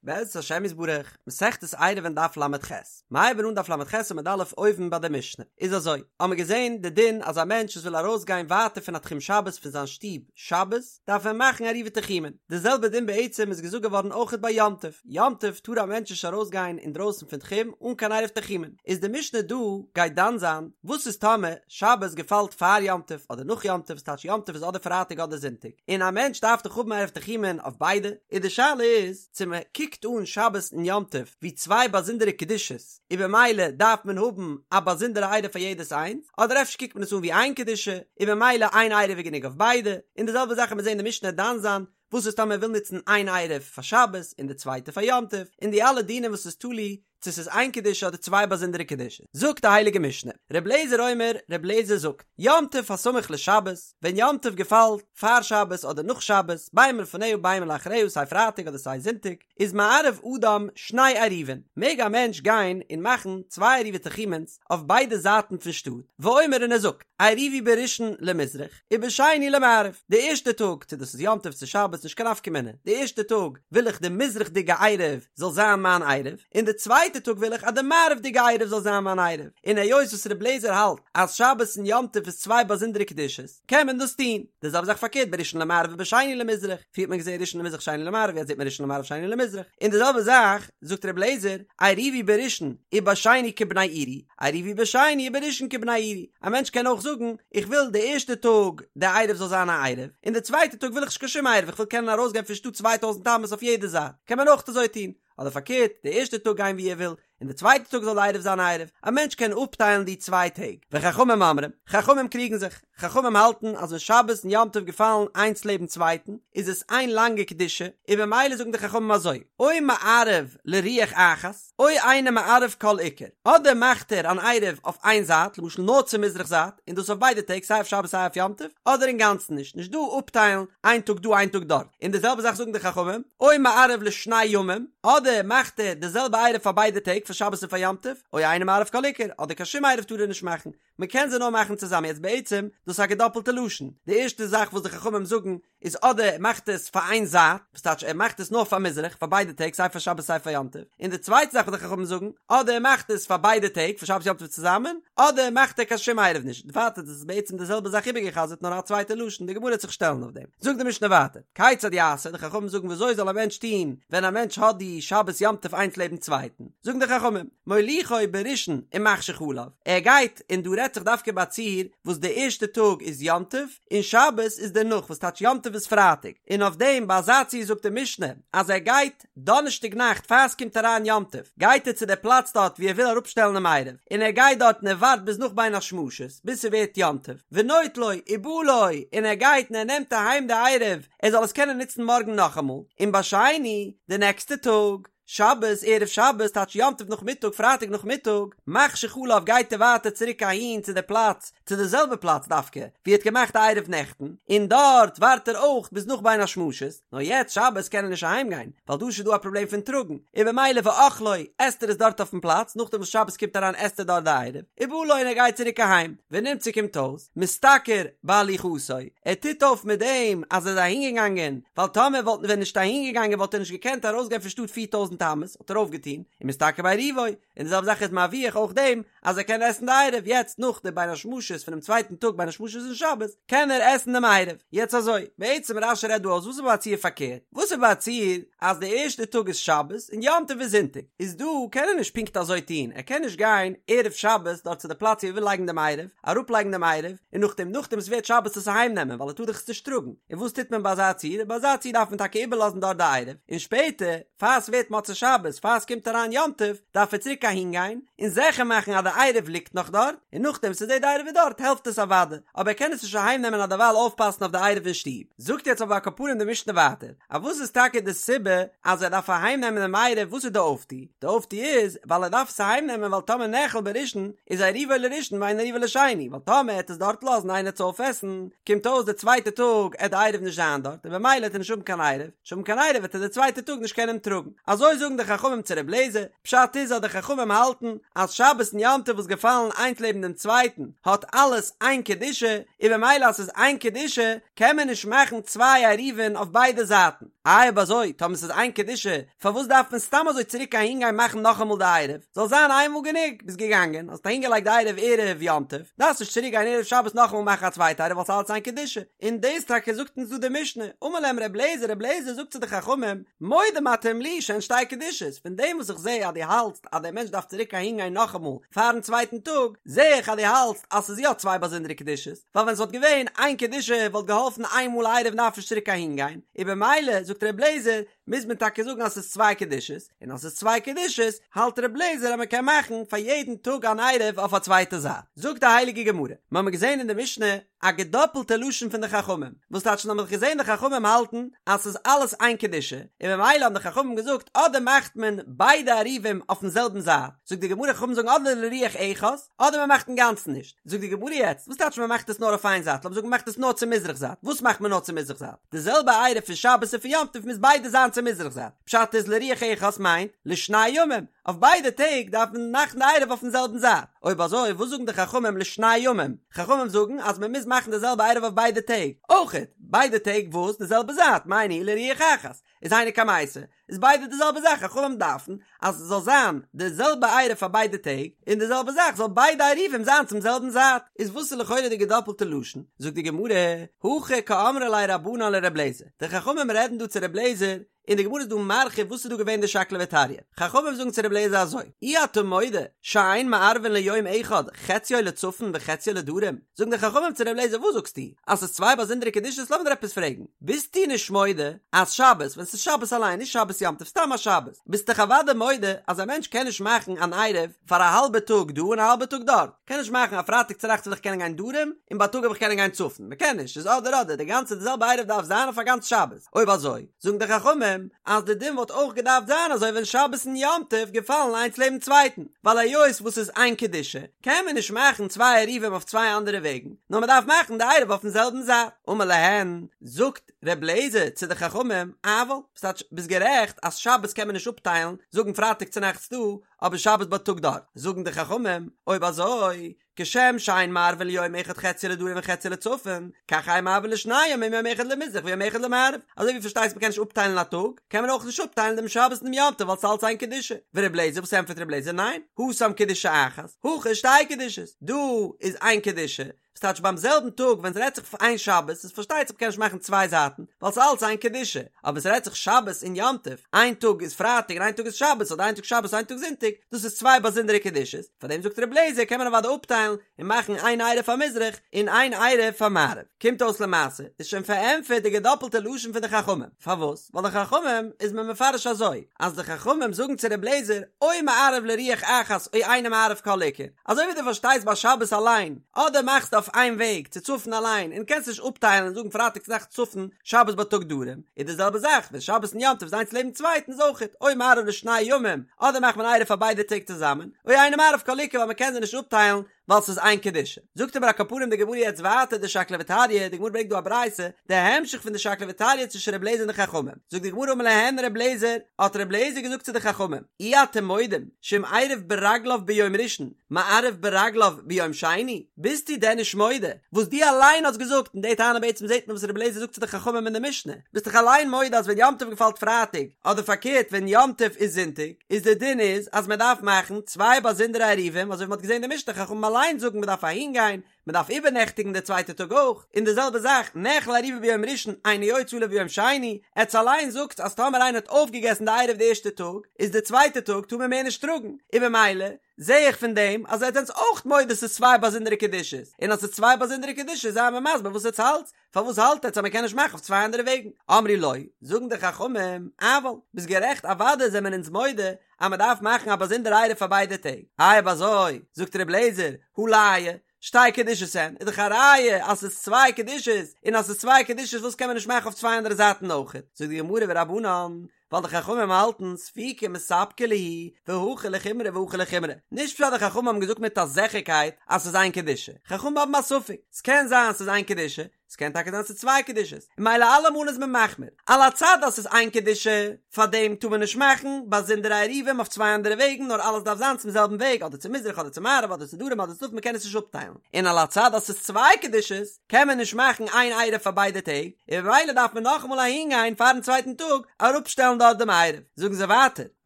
בעזרת השם יתברך, מסכת עירובין דף ל"ח, מיר הייבן אן דף ל"ח עמוד א' אויבן ביי די משנה, איז אזוי, האמיר געזען די דין אז א מענטש וואס וויל ארויסגיין ווייטער פון א תחום שבת פון זיין שטוב שבת, דארף ער מאכן עירובי תחומין, די זעלבע דין בעצם איז געזאגט געווארן אויכעט ביי יום טוב, יום טוב טאר א מענטש נישט ארויסגיין אינדרויסן פון תחום אן קיין עירוב תחומין, איז די משנה דא גייט דן זיין וואס איז טאמער שבת געפאלט פאר יום טוב אדער נאך יום טוב, ס'טייטש יום טוב איז אדער פרייטאג אדער זונטאג, און א מענטש דארף דאך האבן עירוב תחומין אויף ביידע, איז די שאלה איז צו מען קוקט אן שבת און יום טוב ווי צוויי באזונדערע קדושות און במילא דארף מען האבן א באזונדערע עירוב פאר יעדעס איינס, אדער אפשר קוקט מען עס אן ווי איין קדושה און במילא איין עירוב איז גענוג אויף ביידע, און די זעלבע זאך וועט מען זען די משנה דן זיין וואס איז טאמער מען וויל נוצן איין עירוב פאר שבת און די צווייטע פאר יום טוב, און די אלע דינים וואס איז תלוי צו ס'איז איין קדושה אדער צוויי באזונדערע קדושות. זאגט די הייליגע משנה, ר' לעזער אומר, ר' לעזער זאגט, יום טוב הסמוך לשבת, ווען יום טוב געפאלט פאר שבת אדער נאך שבת, בין מלפניה בין מלאחריה סיי פרייטאג אדער סיי זונטאג, איז מערב אדם שני עירובין, מעג א מענטש גיין און מאכן צוויי עירובי תחומין'ס אויף ביידע זייטן פון שטאט, ואומר און ער זאגט, עירובי בראשון למזרח, ובשני למערב, די ערשטע טאג, צו דאס איז יום טוב צו שבת נישט קיין נפקא מינה, די ערשטע טאג וויל איך די מזרח'דיגע עירוב זאל זיין מיין עירוב, און די צווייטע טאג וויל איך אז די מערב'דיגע עירוב זאל זיין מיין עירוב, און היות וואס ר' לעזער האלט אז שבת און יום טוב איז צוויי באזונדערע קדושות, קען מען דאס טון. די זעלבע זאך פארקערט בראשון למערב ובשני למזרח, פריער האט מען געזען ראשון למזרח שני למערב יעצט זעט מען ראשון למערב שני למזרח, און די זעלבע זאך זאגט ר' לעזער, עירובי בראשון ובשני כבני עירי, עירובי בשני ובראשון כבני עירי, א מענטש קען אויך זאגן, איך וויל די ערשטע טאג די עירוב זאל זיין א עירוב, און די צווייטע טאג וויל איך נישט קיין שום עירוב, איך וויל קענען ארויסגיין פון שטאט 2000 אמות אויף יעדע זייט, קען מען אויך אזוי טון, אדער פארקערט, די ערשטע טאג גיין ווי ער וויל, און די צווייטע טאג זאל די עירוב זיין א עירוב, א מענטש קען אפטיילן די צוויי טעג. וחכמים אומרים, חכמים קריגן זיך, חכמים האלטן אז ווען שבת און יום טוב געפאלן איינס לעבן צווייטן, איז עס איין לאנגע קדושה, און במילא זאגן די חכמים אזוי, או מערב לרוח אחת, או אינו מערב כל עיקר, אדער מאכט ער אן עירוב אויף איין זייט, למשל נאר צו מזרח זייט, און דאס אויף ביידע טעג סיי אויף שבת סיי אויף יום טוב, אדער אינגאנצן נישט, נישט דא אפטיילן איין טאג דא איין טאג דארט, און די זעלבע זאך זאגן די חכמים, או מערב לשני ימים, אדער מאכט ער די זעלבע עירוב פאר ביידע טעג פאר שבת און פאר יום טוב, או אינו מערב כל עיקר, אדער קיין שום עירוב טאר ער נישט מאכן, מען קען זיי נאר מאכן צוזאמען, יעצט בעצם דאס איז א געדאפלטע לשון, די ערשטע זאך וואס די חכמים זאגן איז אדער ער מאכט עס פאר איין זייט, וואס טייטש ער מאכט עס נאר פאר מזרח פאר ביידע טעג סיי פאר שבת סיי פאר יום טוב, און די צווייטע זאך וואס די חכמים זאגן, אדער ער מאכט עס פאר ביידע טעג פאר שבת יום טוב צוזאמען, אדער מאכט ער קיין שום עירוב נישט, ווייטער דאס איז בעצם די זעלבע זאך איבערגע'חזר'ט נאר א צווייטע לשון, די גמרא וועט זיך שטעלן אויף דעם. זאגט די משנה ווייטער, כיצד יעשה, די חכמים זאגן ווי אזוי זאל א מענטש טון ווען א מענטש האט די שבת יום טוב איינס לעבן צווייטן, זאגן די חכמים, מוליכו בראשון ומחשיך עליו, ער גייט, און דא רעדט זיך דווקא ביי א ציור וואס די ערשטע טאג איז יום טוב, און שבת איז דערנאך וואס טייטש יום טוב איז פרייטאג, און אויף דעם ביי אזא ציור זאגט די משנה אז ער גייט דאנערשטאג נאכט פאר עס קומט אריין יום טוב גייט ער צו די פלאץ דארט ווי ער וויל אראפשטעלן דעם עירוב, און ער גייט דארט און ער ווארט ביז נאך בין השמשות ביז ס'ווערט יום טוב, ונוטלו ובא לו, און ער גייט און ער נעמט אהיים די עירוב ער זאל עס קענען נוצן מארגן נאכאמאל, און בשני די נעקסטע טאג. שבת, ערב שבת, טייטש יום טוב נאכמיטאג, פרייטאג נאכמיטאג, מחשיך עליו גייט ער ווייטער צוריק אהין צו די פלאץ, צו די זעלבע פלאץ דווקא, ווי ער האט געמאכט די עירוב נעכטן, און דארט ווארט ער אויך ביז נאך בין השמשות, נאר יעצט שבת קען ער נישט אהיים גיין, ווייל דא איז שוין דא א פראבלעם פון טראגן, און במילא ואוכלו, עסט ער עס דארט אויפן פלאץ, נאכדעם וואס שבת קומט אריין עסט ער דארט די עירוב, ובא לו און ער גייט צוריק אהיים, ונמצא קומט אויס. משתכר בהליכתו, ער טוט אויף מיט דעם אז ער איז אהינגעגאנגען, ווייל טאמער וואלט ווען נישט אהינגעגאנגען וואלט ער נישט געקענט ארויסגיין פון שטאט 4000 אמות, האט ער אויפגעטון, ומשתכר בעירובו, און די זעלבע זאך איז מרוויח אויך דעם אז ער קען עסן די עירוב, יעצט נאך די בין השמשות פונעם צווייטן טאג בין השמשות אין שבת, קען ער עסן דעם עירוב. יעצט אזוי, בעצם רש"י רעדט דא אויס וואס איז ביי א ציור פארקערט, וואס איז ביי א ציור אז די ערשטע טאג איז שבת און יום טוב איז זונטאג, איז דא קען ער נישט פונקט אזוי טון, ער קען נישט גיין ערב שבת דארט צו די פלאץ ווי ער וויל לייגן דעם עירוב, אראפלייגן דעם עירוב, און נאכדעם נאכדעם עס ווערט שבת עס אהיים נעמען ווייל ער טאר דאך עס נישט טראגן, און וואס טוט מען ביי אזא ציור? ביי אזא ציור דארף מען טאקע איבערלאזן דארט די עירוב, און שפעטער פאר עס ווערט מוצאי שבת, פאר עס קומט אריין יום טוב, דארף ער צוריק אהין גיין, און זיכער מאכן אז די עירוב ליגט נאך דארט, און נאכדעם וואס ער זעט די עירוב איז דארט העלפט עס אוודאי, אבער ער קען עס נישט אהיים נעמען און דערווייל אויפפאסן אויף די עירוב אין שטוב. זאגט יעצט אבער על כל פנים די משנה ווייטער, אז וואס איז טאקע די סיבה אז ער דארף אהיים נעמען דעם עירוב, וואס איז די אויפטו? די אויפטו איז ווייל ער דארף עס אהיים נעמען ווייל טאמער נאכל בראשון איז עירובו לראשון ואין עירובו לשני, ווייל טאמער ער העט עס דארט לאזן איינער עט עס אויפעסן, קומט אויס די צווייטע טאג עט די עירוב נישט זיין דארט און במילא עט ער נישט האבן קיין עירוב, נישט האבן קיין עירוב וועט ער די צווייטע טאג נישט קענען טראגן. אזוי זאגט. זאגן די חכמים צו ר' לעזער, פשט איז אז די חכמים האלטן אז שבת און יום טוב וואס געפאלן איינס לעבן דעם צווייטן האט אלעס איין קדושה, און במילא אז ס'איז איין קדושה קען מען נישט מאכן צוויי עירובין אויף ביידע זייטן. איי אויב אזוי טאמער ס'איז איין קדושה פארוואס דארף מען סתם אזוי צוריק אהין גיין מאכן נאכאמאל די עירוב? זאל זיין איינמאל גענוג, ביסט געגאנגען האסט אהין געלייגט די עירוב ערב יום טוב, דארפסט נישט צוריק גיין ערב שבת נאכאמאל מאכן א צווייטע עירוב ווייל ס'איז אלץ איין קדושה. און דאס טאקע זאגט אונז דא די משנה, אמר להם ר' לעזער, ר' לעזער זאגט צו די חכמים, מודים אתם לי שהן שתי קדושות, פון דעם וואס איך זע אז דו האלטסט אז דער מענטש דארף צוריק אהין גיין נאכאמאל פארן צווייטן טאג, זע איך אז דו האלטסט אז ס'איז יא צוויי באזונדערע קדושות, ווייל ווען ס'וואלט געווען איין קדושה וואלט געהאלפן איין מאל עירוב דארף נישט צוריק אהין גיין, און במילא זאגט ר' לעזער, מוז מען טאקע זאגן אז ס'איז צוויי קדושות, און אז ס'איז צוויי קדושות, האלט ר' לעזער אז מ'קען מאכן פאר יעדן טאג אן עירוב אויף א צווייטע זייט. זאגט די הייליגע גמרא, מ'האמיר געזען אין די משנה א געדאפלטע לשון פון די חכמים, וואס טייטש האמיר געזען די חכמים האלטן אז ס'איז אלעס איין קדושה, און ממילא האבן די חכמים געזאגט אדער מאכט מען ביידע עירובים אויפן זעלבן זייט, זאגט די גמרא חכמים זאגן אדער לרוח אחת, אדער מ'מאכט אינגאנצן נישט, זאגט די גמרא יעצט, וואס טייטש מ'מאכט עס נאר אויף איין זייט, לאמיר זאגן מ'מאכט עס נאר צו מזרח זייט, וואס מאכט מען נאר צו מזרח זייט? די זעלבע עירוב פון שבת און פון יום טוב מוז ביידע זיין צו מזרח זייט, פשט איז לרוח אחת מיינט לשני ימים, אויף ביידע טעג דארף מען מאכן די עירוב אויפן זעלבן זייט, אויב אזוי וואס זאגן די חכמים לשני ימים? חכמים זאגן אז מען מוז מאכן די זעלבע עירוב אויף ביידע טעג, אויכעט, ביידע טעג וואס? די זעלבע זייט, מאי ניהו לרוח אחת, איז היינו קמייתא, איז ביידע די זעלבע זאך, חכמים דארפן אז עס זאל זיין די זעלבע עירוב פאר ביידע טעג, און די זעלבע זאך זאל ביידע עירובים זיין צום זעלבן זייט, איז וואס איז לכאורה די געדאפלטע לשון? זאגט די גמרא, הכי קאמרי ליה רבנן לר' לעזער, די חכמים רעדן דא צו ר' לעזער, און די גמרא איז דא מרחיב וואס איז דא געווען די שקלא וטריא, חכמים זאגן צו ר' לעזער אזוי, אי אתה מודה שאין מערבין ליום אחד חציו לצפון וחציו לדרום, זאגן די חכמים צו ר' לעזער וואס זאגסטו אז ס'איז צוויי באזונדערע קדושות לאמיר דיר עפעס פרעגן, ביסטו נישט מודה אז שבת ווען ס'איז שבת אליין נישט שבת יום טוב סתם א שבת ביסט דאך אוודאי מודה אז א מענטש קען נישט מאכן אן עירוב פאר א האלבע טאג דא און א האלבע טאג דארט, קען נישט מאכן א פרייטאג צונאכטס וויל איך קענען גיין דרום און בייטאג וויל איך קענען גיין צפון, מ'קען נישט, ס'איז אדער אדער, די גאנצע די זעלבע עירוב דארף זיין אויף א גאנץ שבת, אויב אזוי זאגן די חכמים אז די דין וואלט אויך געדארפט זיין אזוי ווען שבת און יום טוב געפאלן איינס לעבן צווייטן, ווייל היות וואס ס'איז איין קדושה קען מען נישט מאכן צוויי עירובים אויף צוויי אנדערע וועגן, נאר מ'דארף מאכן די עירוב אויפן זעלבן זייט. אמר להן, זאגט ר' לעזער צו די חכמים, אבל, ס'טייטש ביסט גערעכט אז שבת קען מען נישט אפטיילן, זאגן פרייטאג צונאכטס דא, אבער שבת בייטאג דארט, זאגן די חכמים, אויב אזוי, כשם שאין מערבין ליום אחד חציו לדרום וחציו לצפון, כך אין מערבין לשני ימים יום אחד למזרח ויום אחד למערב, אזוי ווי פארשטייסט מ'קען נישט אפטיילן א טאג, קען מען אויך נישט אפטיילן דעם שבת און דעם יום טוב ווייל ס'איז אלץ איין קדושה. ור' לעזער וואס ענטפערט ר' לעזער ניין, התם קדושה אחת, הכא שתי קדושות, דא איז איין קדושה, ס'טייטש ביים זעלבן טאג ווען ס'רעדט זיך פון איין שבת איז פארשטייט זיך מ'קען נישט מאכן צוויי זייטן ווייל ס'איז אלץ איין קדושה, אבער ווען ס'רעדט זיך שבת און יום טוב, איין טאג איז פרייטאג און איין טאג איז שבת אדער איין טאג שבת איין טאג זונטאג, דאס איז צוויי באזונדערע קדושות, פארדעם זאגט ר' לעזער קען מען אוודאי אפטיילן און מאכן איין עירוב פאר מזרח און איין עירוב פאר מערב. קומט אויס למעשה איז שוין פארענטפערט די געדאפלטע לשון פון די חכמים, פארוואס? ווייל די חכמים איז מען מפרש אזוי, אז די חכמים זאגן צו ר' לעזער או מערב לרוח אחת או אינו מערב כל עיקר, אזוי ווי דו פארשטייסט ביי שבת אליין, אדער מאכסטו אויף איין וועג צו צפון אליין און קענסט נישט אפטיילן און זאגן פרייטאג צונאכטס צפון שבת בייטאג דרום, איז די זעלבע זאך ווען שבת און יום טוב איז איינס לעבן צווייטן איז אויכעט או מערב לשני ימים, אדער מאכט מען עירוב פאר ביידע טעג צוזאמען, או אינו מערב כל עיקר ווייל מען קען זיי נישט אפטיילן ווייל ס'איז איין קדושה. זאגט אבער על כל פנים די גמרא יעצט ווייטער די שקלא וטריא, די גמרא ברענגט דא א ברייתא, די המשך פון די שקלא וטריא צווישן ר' לעזער און די חכמים, זאגט די גמרא אמר להן ר' לעזער, האט ר' לעזער געזאגט צו די חכמים, אי אתם מודים שאם עירב ברגליו ביום ראשון מערב ברגליו ביום שני, ביסטו דען נישט מודה וואס דו אליין האסט געזאגט, און די טענה בעצם זעט מען וואס ר' לעזער זאגט צו די חכמים אין די משנה, ביסט דאך אליין מודה אז ווען יום טוב געפאלט פרייטאג, אדער פארקערט ווען יום טוב איז זונטאג, איז די דין איז אז מען דארף מאכן צוויי באזונדערע עירובים אזוי ווי מען האט געזען אין די משנה חכמים אליין זאגן מען דארף אהין גיין מען דארף איבערנעכטיגן די צווייטע טאג אויך, און די זעלבע זאך נאכל עירובו ביום ראשון אינו יוצא עליו ביום שני, עטס אליין זאגטס אז טאמער איינער האט אויפגעגעסן די עירוב די ערשטע טאג איז די צווייטע טאג טאר מען מער נישט טראגן, און במילא זע איך פון דעם אז עטס זענטס אויך מודה ס'איז צוויי באזונדערע קדושות, און אז ס'איז צוויי באזונדערע קדושות זיי מיר מסביר וואס עטס האלטס, פארוואס האלט עטס אז מען קען נישט מאכן אויף צוויי אנדערע וועגן? אמרו לו, זאגן די חכמים, אבל, ביסט גערעכט אוודאי זעמער אונז מודה אז מען דארף מאכן א באזונדערע עירוב פאר ביידע טעג, איי אויב אזוי, זאגט ר' לעזער, הא לאי, שתי קדושות הן, איז דאך א ראיה אז ס'איז צוויי קדושות, און אז ס'איז צוויי קדושות וואס קען מען נישט מאכן אויף צוויי אנדערע זייטן אויכעט? זאגט די גמרא ורבנן, ווייל די חכמים האלטן ספוקי מספקא להו והכא לחומרא והכא לחומרא, נישט פשט די חכמים האבן געזאגט מיט א זיכערקייט אז ס'איז איין קדושה, חכמים האבן א ספק, ס'קען זיין ס'איז איין קדושה, ס'קען טאקע זיין ס'איז צוויי קדושות, און ממילא אלעמאל איז מען מחמיר, על הצד אז ס'איז איין קדושה, פארדעם טאר מען נישט מאכן באזונדערע עירובים אויף צוויי אנדערע וועגן נאר אלעס דארף זיין צום זעלבן וועג אדער צו מזרח אדער צו מערב אדער צו דרום אדער צו צפון מ'קען עס נישט אפטיילן, און על הצד אז ס'איז צוויי קדושות קען מען נישט מאכן איין עירוב פאר ביידע טעג, און ממילא דארף מען נאכאמאל אהינגיין פארן צווייטן טאג אראפשטעלן דארט דעם עירוב. זאגן זיי ווייטער,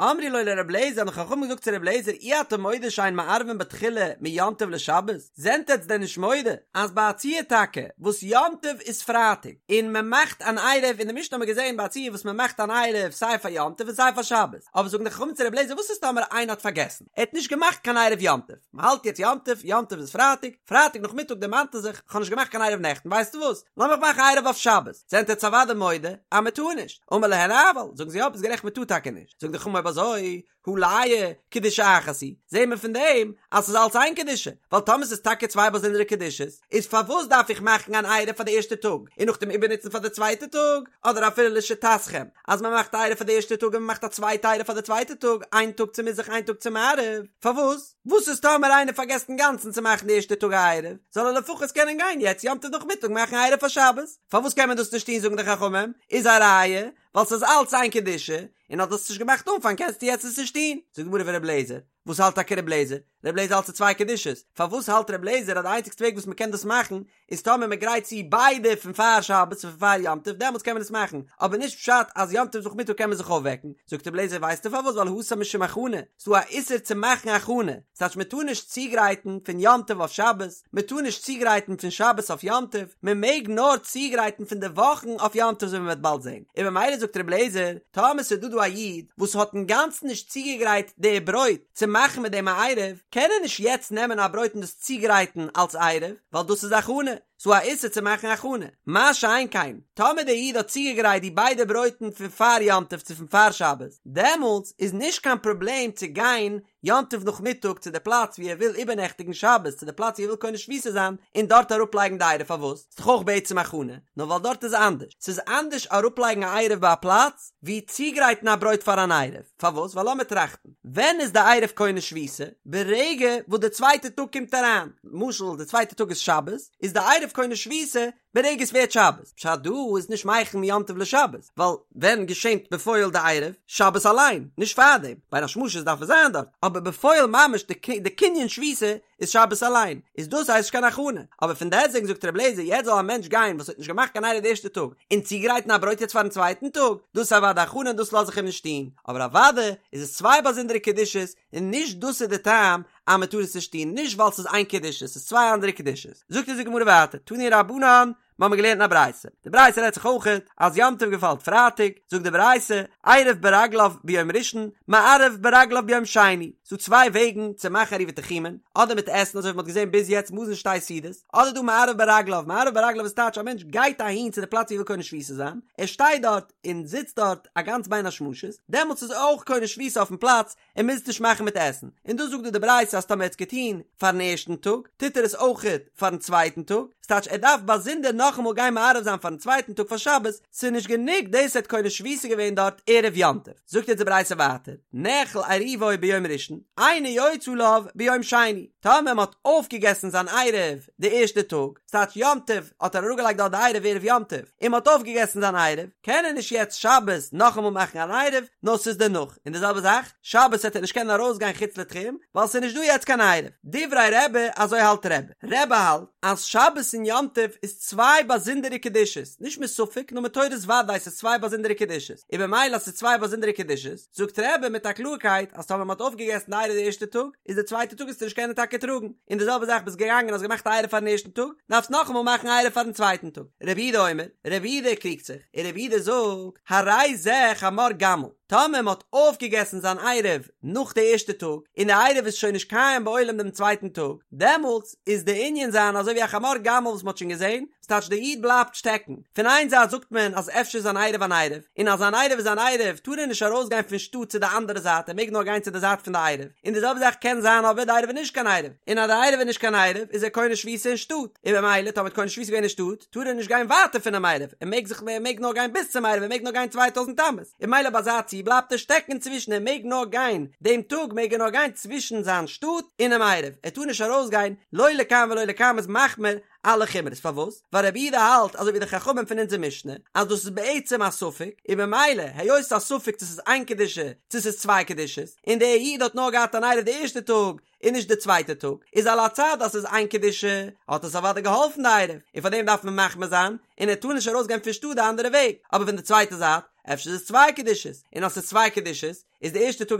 אמרו לו לר' אליעזר האבן די חכמים געזאגט צו ר' אליעזר אי אתה מודה שאין מערבין בתחילה מיום טוב לשבת, זענט עטץ דען נישט מודה אז ביי א ציור טאקע וואס יום טוב איז פרייטאג און מען מאכט אן עירוב אין די משנה האט מען געזען ביי א ציור וואס מען מאכט אן עירוב סיי פאר יום טוב און סיי פאר שבת, אבער זאגן די חכמים צו ר' אליעזר וואס איז טאמער איינער האט פארגעסן ער האט נישט געמאכט קיין עירוב יום טוב, מען האלט יעצט יום טוב, יום טוב איז פרייטאג, פרייטאג נאכמיטאג דערמאנט ער זיך כ'האב נישט געמאכט קיין עירוב נעכטן ווייסטו וואס לאמיך מאכן עירוב אויף שבת, זענט עטץ אוודאי מודה אז מען טאר נישט, אמר להן אבל, זאגן זיי יא ביסט גערעכט מען טאר טאקע נישט, זאגן די חכמים אויב אזוי הא לאי קדושה אחת היא, זעהן מיר פון דעם אז ס'איז אלץ איין קדושה, ווייל טאמער ס'איז טאקע צוויי באזונדערע קדושות, איז פארוואס דארף איך מאכן אן עירוב פאר די ערשטע טאג און נאכדעם איבערנוצן פאר די צווייטע טאג, אדער אפילו לשיטתכם אז מען מאכט א עירוב פאר די ערשטע טאג און מען מאכט א צווייטע עירוב פאר די צווייטע טאג, איין טאג צו מזרח איין טאג צו מערב, פארוואס? וואס איז טאמער איינער פארגעסט אינגאנצן צו מאכן די ערשטע טאג א עירוב, זאל ער לפחות קענען גיין יעצט יום טוב נאכמיטאג מאכן א עירוב פאר שבת, פארוואס קען מען דאס נישט טון זאגן די חכמים, איז א ראיה, ווייל ס'איז אלץ איין קדושה, און אז דו האסט עס נישט געמאכט אנפאנג קענסטו יעצט עס נישט טון. זאגט די גמרא ור' לעזער, וואס האלט טאקע ר' לעזער? ר' לעזער האלט ס'איז צוויי קדושות, פארוואס האלט ר' לעזער אז די איינציגסטע וועג וואס מ'קען דאס מאכן איז טאמער מ'גרייט צו ביידע פון פאר שבת און פון פאר יום טוב דעמאלטס קען מען עס מאכן, אבער נישט פשט אז יום טוב נאכמיטאג קען מען זיך אויפוועקן, זאגט ר' לעזער ווייסטו פארוואס ווייל התם משום הכנה, ס'דא א איסור צו מאכן הכנה, ס'טייטש מען טאר נישט צוגרייטן פון יום טוב אויף שבת, מען טאר נישט צוגרייטן פון שבת אויף יום טוב, מען מעג נאר צוגרייטן פון די וואכן אויף יום טוב אזוי ווי מען וועט באלד זען, און ממילא זאגט רבי אליעזר, טאמער ס'איז דא דא א איד וואס האט אינגאנצן נישט צוגעגרייט די ברויט צו מאכן מיט דעם א עירוב, קען ער נישט יעצט נעמען א ברויט און דאס צוגרייטן אלס עירוב, ווייל דאס איז הכנה, ס'דא א איסור צו מאכן הכנה, מה שאין כן, טאמער דער איד האט צוגעגרייט די ביידע ברויטן פון פאר יום טוב צו פון פאר שבת, דעמאלטס איז נישט קיין פראבלעם צו גיין יום טוב נאכמיטאג צו די פלאץ וואו ער וויל איבערנעכטיגן שבת צו די פלאץ וואו ער וויל קונה שביתה זיין און דארט אראפלייגן די עירוב פארוואס? ס'איז דאך אויך בעצם הכנה, נאר ווייל דארט איז אנדערש, ס'איז אנדערש אראפלייגן א עירוב ביי א פלאץ ווי צוגרייטן א ברויט פאר אן עירוב, פארוואס? ווייל לאמיר טראכטן, ווען איז די עירוב קונה שביתה? ברגע וואס די צווייטע טאג קומט אריין, למשל די צווייטע טאג איז שבת, איז די עירוב קונה שביתה ברגע עס ווערט שבת, פשט דא איז נישט מכין מיום טוב לשבת, ווייל ווען געשענט בפועל די עירוב? שבת אליין, נישט פארדעם, בין השמשות דארף עס זיין דארט, אבער בפועל ממש די קנין שביתה איז שבת אליין, איז דאס הייסט נישט קיין הכנה, אבער פון דעסטוועגן זאגט רבי אליעזר יעצט זאל א מענטש גיין וואס האט נישט געמאכט קיין עירוב די ערשטע טאג, און צוגרייטן א ברויט יעצט פארן צווייטן טאג, דאס איז אוודאי הכנה און דאס לאז איך אים נישט טון, אבער אוודאי איז עס צוויי באזונדערע קדושות, און נישט דאס איז די טעם אז מען טאר עס נישט טון, נישט ווייל ס'איז איין קדושה, ס'איז צוויי אנדערע קדושות. זאגט אונז די גמרא ווייטער, תנו רבנן, מיר האבן געלערנט אין א ברייתא, די ברייתא רעדט זיך אויכעט אז יום טוב געפאלט פרייטאג, זאגט די ברייתא, עירב ברגליו ביום ראשון, מערב ברגליו ביום שני, ס'דא צוויי וועגן צו מאכן עירובי תחומין, אדער מיט עסן אזוי ווי מ'האט געזען ביז יעצט מזון שתי סעודות, אדער דא מערב ברגליו, מערב ברגליו איז טייטש א מענטש גייט אהין צו די פלאץ ווי ער וויל קונה שביתה זיין, ער שטייט דארט און זיצט דארט א גאנץ בין השמשות, דעמאלטס איז ער אויך קונה שביתה אויפן פלאץ, ער מוז נישט מאכן מיט עסן, און דאס זאגט דא די ברייתא אז טאמער ער האט עס געטון פארן ערשטן טאג, טוט ער עס אויכעט פארן צווייטן טאג, ס'טייטש ער דארף באזונדער נאכאמאל גיין מערב זיין פארן צווייטן טאג פאר שבת, ס'איז נישט גענוג דאס ער האט קונה שביתה געווען דארט ערב יום טוב. זאגט אונז די ברייתא ווייטער, נאכל עירובו ביום ראשון, אינו יוצא עליו ביום שני, טאמער מ'האט אויפגעגעסן זיין עירוב די ערשטע טאג, ס'טייטש יום טוב האט ער אראפגעלייגט דארט די עירוב ערב יום טוב, און מ'האט אויפגעגעסן זיין עירוב, קען ער נישט יעצט שבת נאכאמאל מאכן אן עירוב, נאר ס'איז דערנאך, און די זעלבע זאך, שבת וועט ער נישט קענען ארויסגיין חוץ לתחום, ווייל ס'איז נישט דא יעצט קיין עירוב. דברי רבי, אזוי האלט רבי. רבי האלט אז שבת און יום טוב איז צוויי באזונדערע קדושות, נישט מספק נאר מתורת ודאי ס'איז צוויי באזונדערע קדושות, און במילא אז ס'איז צוויי באזונדערע קדושות, זאגט רבי מיט א קלארקייט אז טאמער מ'האט אויפגעגעסן די עירוב די ערשטע טאג, איז די צווייטע טאג וועסטו נישט קענען טאקע טראגן, און די זעלבע זאך ביסט געגאנגען האסט געמאכט א עירוב פארן ערשטן טאג, דארפסט נאכאמאל מאכן א עירוב פארן צווייטן טאג. רבי יהודה אומר, רבי יהודה קריגט זיך, און רבי יהודה זאגט, הרי זה חמור גמל, טאמער מ'האט אויפגעגעסן זיין עירוב נאך די ערשטע טאג, און די עירוב איז שוין נישט קיים בעולם דעם צווייטן טאג, דעמאלטס איז די ענין זיין אזוי ווי א חמור גמל וואס מ'האט שוין געזען, ס'טייטש די איד בלייבט שטעקן. פון איין זייט זאגט מען אז אפשר איז זיין עירוב אן עירוב, און אז זיין עירוב איז אן עירוב טאר ער נישט ארויסגיין פון שטאט צו די אנדערע זייט ער מעג נאר גיין צו די זייט פון די עירוב, און די זעלבע זאך קען זיין אבער די עירוב איז נישט קיין עירוב, און אז די עירוב איז נישט קיין עירוב איז ער קונה שביתה אין שטאט, און במילא טאמער האט קונה שביתה געווען אין שטאט טאר ער נישט גיין ווייטער פונעם עירוב, ער מעג זיך ער מעג נאר גיין ביז צום עירוב ער מעג נאר גיין 2000 אמות, און במילא ביי אזא ציור בלייבט ער שטעקן אינצווישן ער מעג נאר גיין דעם טאג מעג ער נאר גיין צווישן זיין שטאט און דעם עירוב ער טאר נישט ארויסגיין לא לכאן ולא לכאן איז משמע. מחמיר אלע חומרות, פארוואס? ווייל רבי יהודה האלט אזוי ווי די חכמים פון אונזער משנה אז דאס איז בעצם א ספק, און ממילא היות ס'איז א ספק צו ס'איז איין קדושה צו ס'איז צוויי קדושות, און דער איד האט נאר געהאט אן עירוב די ערשטע טאג און נישט די צווייטע טאג, איז על הצד אז ס'איז איין קדושה האט עס אוודאי געהאלפן די עירוב, און פארדעם דארף מען מחמיר זיין, און ער טאר נישט ארויסגיין פון שטאט די אנדערע וועג, אבער פון די צווייטע זייט אפשר איז עס צוויי קדושות, און אז ס'איז צוויי קדושות איז די ערשטע טאג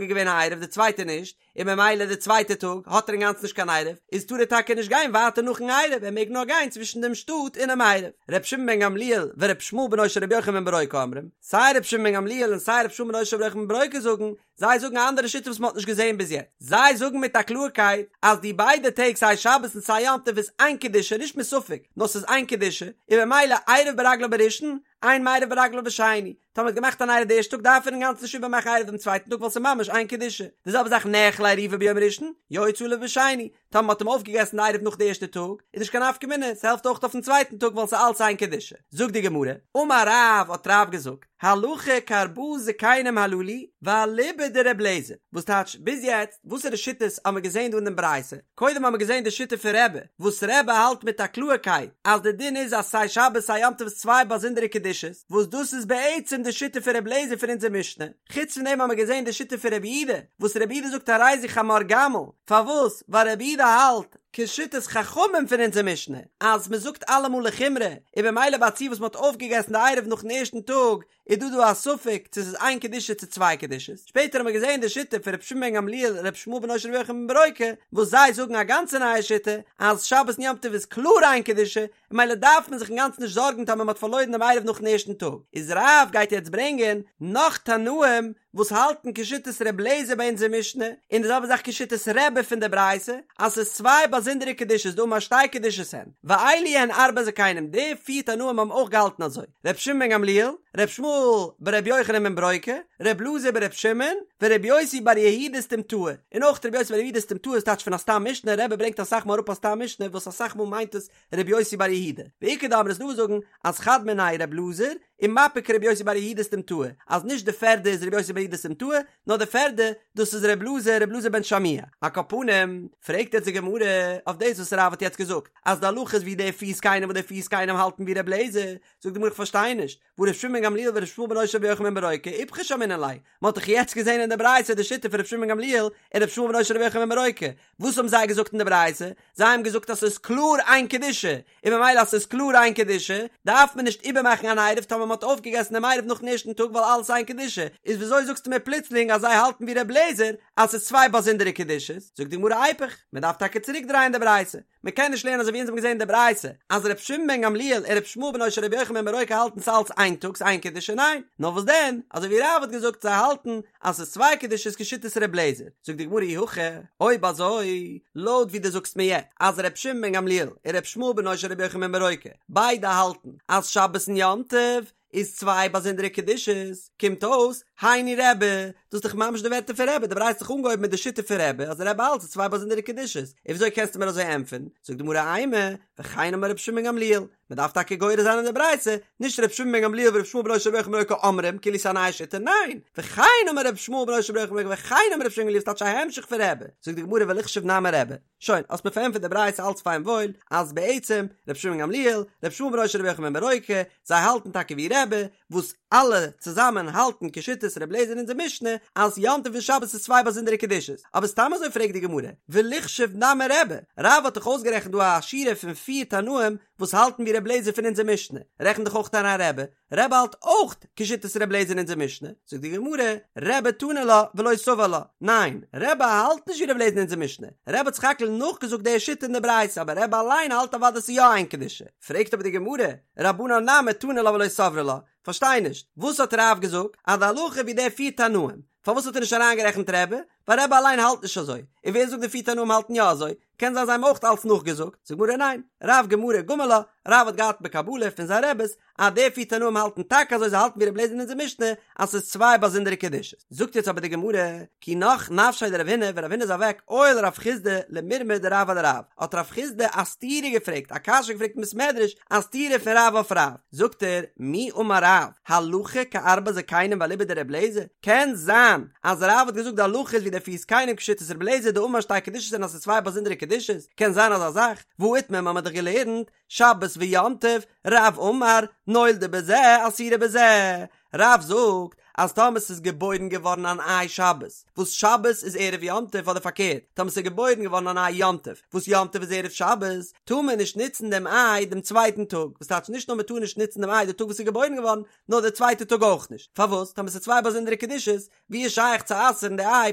איז געווען א עירוב די צווייטע נישט, און ממילא די צווייטע טאג האט ער אינגאנצן נישט קיין עירוב, איז טאר ער טאקע נישט גיין ווייטער נאכן עירוב, ער מעג נאר גיין צווישן דעם שטאט און דעם עירוב. ר' שמעון בן גמליאל ור' ישמעאל בנו של ר' יוחנן בן ברוקה אומרים, סיי ר' שמעון בן גמליאל און סיי ר' ישמעאל בנו של ר' יוחנן בן ברוקה זאגן, זיי זאגן א אנדערע שיטה וואס מען האט נישט געזען ביז יעצט, זיי זאגן מיט א קלארקייט אז די ביידע טעג סיי שבת און סיי יום טוב איז איין קדושה נישט מספק נאר ס'איז איין קדושה, און ממילא עירב ברגליו בראשון, אין מערב ברגליו בשני, טאמער האט געמאכט אן עירוב די ערשטע טאג דארף ער אינגאנצן נישט איבערמאכן עירוב דעם צווייטן טאג ווייל ס'איז ממש איין קדושה. די זעלבע זאך נאכל עירובו ביום ראשון, יוצא עליו בשני, טאמער מ'האט אים אויפגעגעסן די עירוב נאך די ערשטע טאג, איז נישט קיין נפקא מינה, ס'העלפט אויך אויפן צווייטן טאג ווייל ס'איז אלץ איין קדושה. זאגט די גמרא, אמר רב האט רב געזאגט, הלכה כארבעה זקנים הללו ואליבא דר' אליעזר, וואס טייטש ביז יעצט וואסערע שיטות האמער געזען דא אין דעם ברייתא? קודם האמער געזען די שיטה פון רבי, וואס רבי האלט מיט א קלארקייט אז די דין איז אז סיי שבת סיי יום טוב איז צוויי באזונדערע קדושות, וואס דאס איז בעצם די שיטה פון רבי אליעזר פון אונזער משנה, חוץ פון דעם האמער געזען די שיטה פון רבי יהודה, וואס רבי יהודה זאגט הרי זו חמור גמל, פארוואס? ווייל רבי יהודה האלט, כשיטת חכמים פון אונזער משנה, אז מען זאגט אלעמאל לחומרא, און במילא ביי א ציור וואס מען האט אויפגעגעסן די עירוב נאכן ערשטן טאג, איז דא דא א ספק צו ס'איז איין קדושה צו צוויי קדושות, שפעטער האט מען געזען די שיטה פון ר' שמעון בן גמליאל ר' ישמעאל בנו של ר' יוחנן בן ברוקה, וואס זיי זאגן א גאנצע נייע שיטה, אז שבת און יום טוב איז קלאר איין קדושה, און ממילא דארף מען זיך אינגאנצן נישט זארגן טאמער מ'האט פארלוירן דעם עירוב נאכן ערשטן טאג, איז רב גייט יעצט ברענגען נאך תנאים וואס האלטן כשיטת ר' אליעזר ביי אונזער משנה, און די זעלבע זאך כשיטת רבי פון די ברייתא, אז ס'איז צוויי באזונדערע קדושות דאמר שתי קדושות הן, ואלו הן ארבעה זקנים, די פיר תנאים האבן אויך געהאלטן אזוי, ר' שמעון בן גמליאל, ר' ישמעאל בר' יוחנן בן ברוקה, ר' אלעזר בר' שמעון, ור' יוסי בר יהודה סתימתאה, און אויך ר' יוסי בר יהודה סתימתאה איז טייטש פון א סתם משנה, רבי ברענגט אסאך מאל אראפ א סתם משנה וואס אסאך מאל מיינט עס ר' יוסי בר יהודה, ואיכא דאמרי ס'דא וואס זאגן אז חד מינייהו ר' אלעזר, ומפיק ר' יוסי בר יהודה סתימתאה, אז נישט די פערדע איז ר' יוסי בר יהודה סתימתאה, נאר די פערדע, דאס איז ר' אלעזר, ר' אלעזר בן שמוע. על כל פנים, פרעגט יעצט די גמרא אויף דאס וואס רב האט יעצט געזאגט, אז די הלכה איז ווי די פיר זקנים וואס די פיר זקנים האלטן ווי ר' אליעזר, זאגט די גמרא איך פארשטיי נישט, והא ר' שמעון בן גמליאל ור' ישמעאל בנו של ר' יוחנן בן ברוקה איפכא שמעינן ליה, מען האט דאך יעצט געזען אין די ברייתא די שיטה פון ר' שמעון בן גמליאל און ר' ישמעאל בנו של ר' יוחנן בן ברוקה, וואס האבן זיי געזאגט אין די ברייתא? זיי האבן געזאגט אז ס'איז קלאר איין קדושה, און ממילא אז ס'איז קלאר איין קדושה, דארף מען נישט איבערמאכן אן עירוב טאמער מ'האט אויפגעגעסן דעם עירוב נאכן ערשטן טאג ווייל אלעס איז איין קדושה, איז וויאזוי זאגסטו מיר פלוצלינג אז זיי האלטן ווי ר' אליעזר אז ס'איז צוויי באזונדערע קדושות? זאגט די גמרא איפוך, מ'דארף טאקע צוריקדרייען די ברייתא, מ'קען נישט לערנען אזוי ווי אונז האבן געזען אין די ברייתא אז ר' שמעון בן גמליאל און ר' ישמעאל בנו של ר' יוחנן בן ברוקה האלטן ס'אלץ איין טאג ס'איין קדושה, ניין, נאר וואס דען, אזוי ווי רב האט געזאגט זיי האלטן אז ס'איז צוויי קדושות כשיטת ר' אליעזר, זאגט די גמרא אי הכי, אויב אזוי, לויט ווי דו זאגסט מיר יעצט, אז ר' שמעון בן גמליאל און ר' ישמעאל בנו של ר' יוחנן בן ברוקה ביידע האלטן אז שבת און יום טוב איז צוויי באזונדערע קדושות, קומט אויס, היינו רבי, דאס איז דאך ממש די ווערטער פון רבי, די ברייתא האט זיך אנגעהויבן מיט די שיטה פון רבי, אז רבי האלט ס'איז צוויי באזונדערע קדושות, און וויאזוי קענסטו מיר אזוי ענטפערן? זאגט די גמרא אימא, וכן אמר ר' שמעון בן גמליאל, מען דארף טאקע גורס זיין אין די ברייתא, נישט ר' שמעון בן גמליאל ור' ישמעאל בנו של ר' יוחנן בן ברוקה אומרים, כאילו ס'איז א נייע שיטה, ניין! וכן אמר ר' ישמעאל בנו של ר' יוחנן בן ברוקה וכן אמר ר' שמעון בן גמליאל ס'טייטש א המשך פון רבי, זאגט די גמרא וליחשוב נמי רבי, שוין, האסט מיר פארענטפערט די ברייתא אלץ פיין וואויל, אז בעצם, ר' שמעון בן גמליאל, ר' ישמעאל בנו של ר' יוחנן בן ברוקה, זיי האלטן טאקע ווי רבי, וואס אלע צוזאמען האלטן כשיטת ר' אליעזר אין אונזער משנה אז יום טוב און שבת איז צוויי באזונדערע קדושות, אבער סתם אזוי פרעגט די גמרא, וליחשוב נמי רבי, רב האט דאך אויסגערעכנט דא א שורה פון פיר תנאים וואס האלטן ווי ר' אליעזר פון אונזער משנה, רעכן דאך אויך אריין רבי, רבי האלט אויך כשיטת ר' אליעזר אין אונזער משנה, זאגט די גמרא, רבי תני לה ולא סבר לה, ניין, רבי האלט נישט ווי ר' אליעזר אין אונזער משנה, רבי האט סך הכל נאכגעזאגט די שיטה אין די ברייתא אבער רבי אליין האלט אוודאי ס'איז יא איין קדושה. פרעגט אבער די גמרא, רבנן נמי תנו לה ולא סברי לה, פארשטיי נישט, וואס האט רב געזאגט אז די הלכה ווי די פיר תנאים, פארוואס האט ער נישט אריינגערעכנט רבי, ווייל רבי אליין האלט נישט אזוי, און ווער זאגט די פיר תנאים האלטן יא אזוי, קען זיין זיי האבן אויך אלץ נאכגעזאגט, זאגט גמרא ניין, רב גמרא גמר לה, רב האט געהאט בקבלה פון זיין רעבעס אז די פיר תנאים האלטן טאקע אזוי זיי האלטן ווי רבי אליעזר אין אונזער משנה אז ס'איז צוויי באזונדערע קדושות. זאגט יעצט אבער די גמרא, כי נח נפשיה דרב הונא, ווען רב הונא איז אוועק, עייל רב חסדא למירמא דרב אדרב, האט רב חסדא א סתירה געפרעגט, א קשיא געפרעגט אין בית מדרש, א סתירה פון רב אויף רב, זאגט ער, מי אמר רב, הלכה כארבעה זקנים ואליבא דרבי אליעזר, קען זיין אז רב האט געזאגט די הלכה איז ווי די. די פיס קיינעם כשיטת רבי אליעזר דאמר שתי קדושות הן אז ס'איז צוויי באזונדערע קדושות, קען זיין אזא זאך, והא איתמר מ'האמיר דאך געלערנט, שבת ויום טוב, רב אמר, נולדה בזה אסורה בזה, רב זאגט אז טאמער ס'איז געבוירן געווארן אן איי שבת, וואס שבת איז ערב יום טוב אדער פארקערט, טאמער ס'איז געבוירן געווארן אן איי יום טוב, וואס יום טוב איז ערב שבת, טאר מען נישט נוצן דעם איי דעם צווייטן טאג, וואס טייטש נישט נאר מ'טאר נישט נוצן דעם איי די טאג וואס ס'איז געבוירן געווארן, נאר די צווייטע טאג אויך נישט, פארוואס? טאמער ס'איז צוויי באזונדערע קדושות, ווי איז שייך צו אסר'ן די איי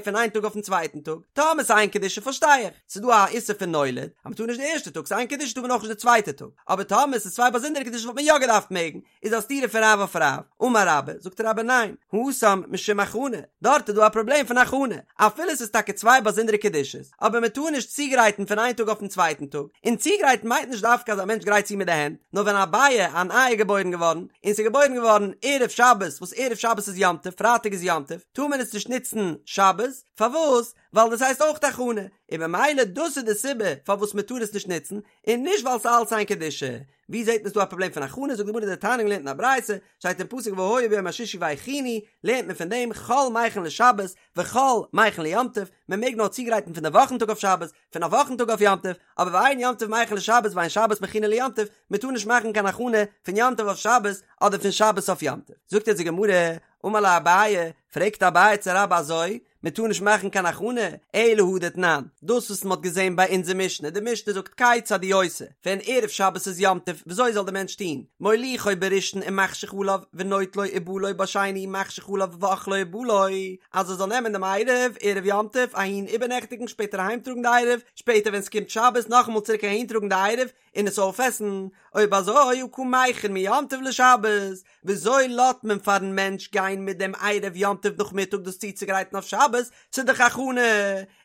פון איין טאג אויפן צווייטן טאג? טאמער ס'איז איין קדושה פארשטיי איך, ס'איז דא א איסור פון נולד, אז מ'טאר נישט די ערשטע טאג, ס'איז איין קדושה טאר מען אויך נישט די צווייטע טאג, אבער טאמער ס'איז צוויי באזונדערע קדושות וואלט מען יא געדארפט מעגן, איז א סתירה פון רב אויף רב, אמר רבה, זאגט רבה ניין, התם משום הכנה, דארט איז דא א פראבלעם פון הכנה, אפילו ס'איז טאקע צוויי באזונדערע קדושות, אבער מ'טאר נישט צוגרייטן פון איין טאג אויפן צווייטן טאג, און צוגרייטן מיינט נישט דווקא אז א מענטש גרייט צו מיט די הענט, נאר ווען א ביעא, אן איי איז געבוירן געווארן, און ס'איז געבוירן געווארן ערב שבת, וואס ערב שבת איז יום טוב, פרייטאג איז יום טוב, טאר מען עס נישט נוצן שבת, פארוואס? ווייל דאס הייסט אויך הכנה, און במילא דאס איז די סיבה פארוואס מען טאר עס נישט נוצן, און נישט ווייל ס'איז אלץ איין קדושה. ווי זעט מען ס'דא א פראבלעם פון הכנה? זאגט די גמרא דתניא געלערנט אין א ברייתא, שטייט אין פסוק והיה ביום השישי והכינו, לערנט מען פון דעם חול מכין לשבת וחול מכין ליום טוב, מען מעג נאר צוגרייטן פון די וואכן טאג אויף שבת, פון א וואכן טאג אויף יום טוב, אבער ואין יום טוב מכין לשבת ואין שבת מכינה ליום טוב, מען טאר נישט מאכן קיין הכנה פון יום טוב אויף שבת אדער פון שבת אויף יום טוב. זאגט יעצט די גמרא, אמר ליה אביי, פרעגט אביי צו רבה אזוי, מען טאר נישט מאכן קיין הכנה, אלא הא דתנן, דאס וואס מען האט געזען ביי אונזער משנה, די משנה זאגט כיצד הוא עושה, ווען ערב שבת איז יום טוב, וויאזוי זאל דער מענטש טון, מוליכו בראשון ומחשיך עליו, ונוטלו ובא לו בשני ומחשיך עליו ואוכלו ובא לו, אז ער זאל נעמען דעם עירוב ערב יום טוב אהין איבערנעכטיגן שפעטער אהיימטראגן די עירוב, שפעטער ווען ס'קומט שבת נאכאמאל צוריק אהינטראגן די עירוב און עס אויפעסן, אויב אזוי הא קא מכין מיום טוב לשבת, וויאזוי לאזט מען פארן מענטש גיין מיט דעם עירוב יום טוב נאכמיטאג דאס צוצוגרייטן אויף שבת, ס'איז דאך הכנה,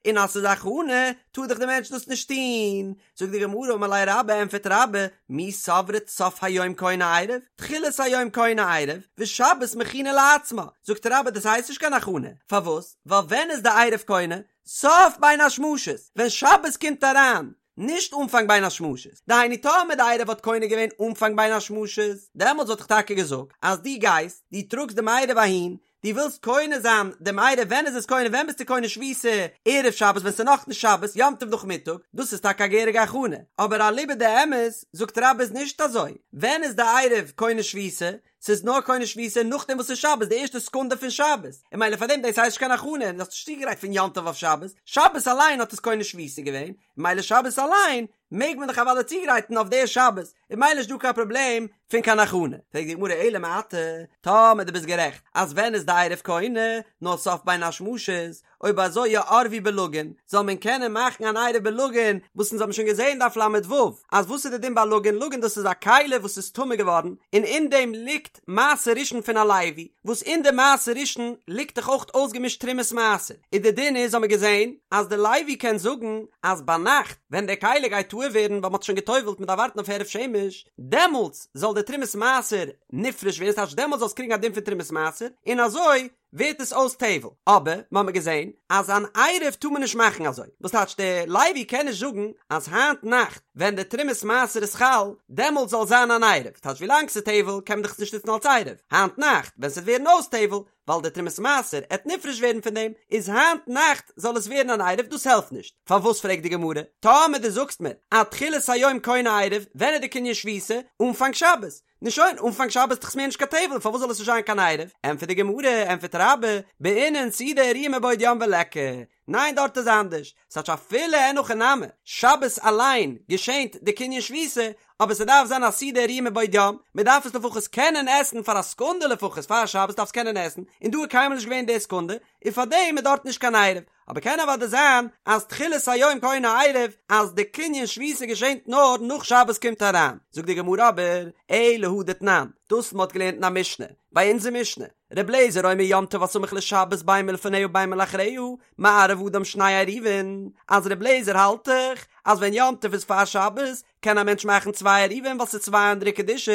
און אז ס'איז הכנה טאר דאך דער מענטש דאס נישט טון, זאגט די גמרא אמר ליה רבה ענפערט רבה מי סברת סוף היום קונה עירוב תחילת היום קונה עירוב ושבת מכינה לעצמה זאגט רבה דאס הייסט נישט קיין הכנה פארוואס ווייל ווען איז די עירוב קונה סוף בין השמשות ווען שבת קומט אריין נישט אנפאנג בין השמשות דהיינו טאמער די עירוב האט קונה געווען אנפאנג בין השמשות דעמאלטס וואלט איך טאקע געזאגט אז דו גייסט דו טראגסט דעם עירוב אהין דו ווילסט קונה זיין דעם עירוב ווען איז עס קונה ווען ביסטו קונה שביתה ערב שבת ווען ס'איז נאכנישט שבת יום טוב נאכמיטאג דאס איז טאקע א געהעריגע הכנה אבער אליבא דאמת זאגט רבה איז נישט אזוי ווען איז די עירוב קונה שביתה ס'איז נאר קונה שביתה נאכדעם וואס ס'איז שבת די ערשטע סעקונדע פון שבת און ממילא פארדעם דאס הייסט נישט קיין הכנה און דו האסט נישט צוגעגרייט פון יום טוב אויף שבת שבת אליין האט עס קונה שביתה געווען ממילא שבת אליין מעג מען דאך אוודאי צוגרייטן אויף די שבת, און ממילא נישט דא קיין פראבלעם פון קיין הכנה. פרעגט די גמרא אלא מעתה, טאמער דו ביסט גערעכט אז ווען איז די עירוב קונה, נאר סוף בין השמשות, אויב אזוי יערבו בלגין, זאל מען קענען מאכן אן עירוב בלגין, וואס אונז האבן שוין געזען דף ל"ו, אז וואס איז די דין ביי לגין, לגין דאס איז א כלי וואס איז טמא געווארן, און אין דעם ליגט מעשר ראשון פון א לוי, וואס אין די מעשר ראשון ליגט דאך אויך אויסגעמישט תרומת מעשר, און די דין איז האמיר געזען אז די לוי קען זאגן אז ביינאכט ווען די כלי גייט טהור ווערן ווייל מ'האט שוין גע'טובל'ט מ'דארף ווארטן אויף הערב שמש, דעמאלטס זאל די תרומת מעשר נפרש ווערן, ס'טייטש דעמאלטס זאל עס קריגן א דין פון תרומת מעשר, און אזוי ווערט עס אויס טבל, אבער מ'האמיר געזען אז אן עירוב טאר מען נישט מאכן אזוי, וואס טייטש דער לוי קען נישט זאגן אז היינט נאכט ווען די תרומת מעשר איז חל דעמאלטס זאל זיין אן עירוב, טייטש ווילאנג ס'איז טבל קען מען דאך עס נישט נוצן אלס עירוב, היינט נאכט ווען ס'וועט ווערן אויס טבל ווייל די תרומת מעשר עט נפרש ווערן פון דעם, איז היינט נאכט זאל עס ווערן אן עירוב דאס העלפט נישט, פארוואס פרעגט די גמרא, טאמער דו זאגסט מיר אז תחילת היום קונה עירוב, ווען איז די קנין שביתה? אנפאנג שבת, נו שוין, אנפאנג שבת איז דאך מער נישט קיין טבל, פארוואס זאל עס נישט זיין קיין עירוב? ענטפערט די גמרא, ענטפערט רבה, בעינן סעודה הראויה מבעוד יום וליכא. ניין דארט איז אנדערש, ס'טייטש אפילו אין הכי נמי, שבת אליין געשענט די קנין שביתה, אבער ס'דארף זיין א סעודה הראויה מבעוד יום, מ'דארף עס לפחות קענען עסן פאר א סעקונדע לפחות פאר שבת דארף עס קענען עסן, און דא איז קיינמאל נישט געווען די סעקונדע, און פארדעם איז דארט נישט קיין עירוב. אבער קען אוודאי זיין אז תחילת היום קונה עירוב אז די קנין שביתה געשענט נאר נאך שבת קומט אריין, זאגט די גמרא אבער אלא הא דתנן, דאס מ'האט געלערנט אין א משנה, ביי אונזער משנה, ר' אליעזר אומר יום טוב הסמוך לשבת בין מלפניה בין מלאחריה, מערב אדם שני עירובין, אז ר' אליעזר האלט דאך אז ווען יום טוב איז פאר שבת קען א מענטש מאכן צוויי עירובין ווייל ס'איז צוויי אנדערע קדושות,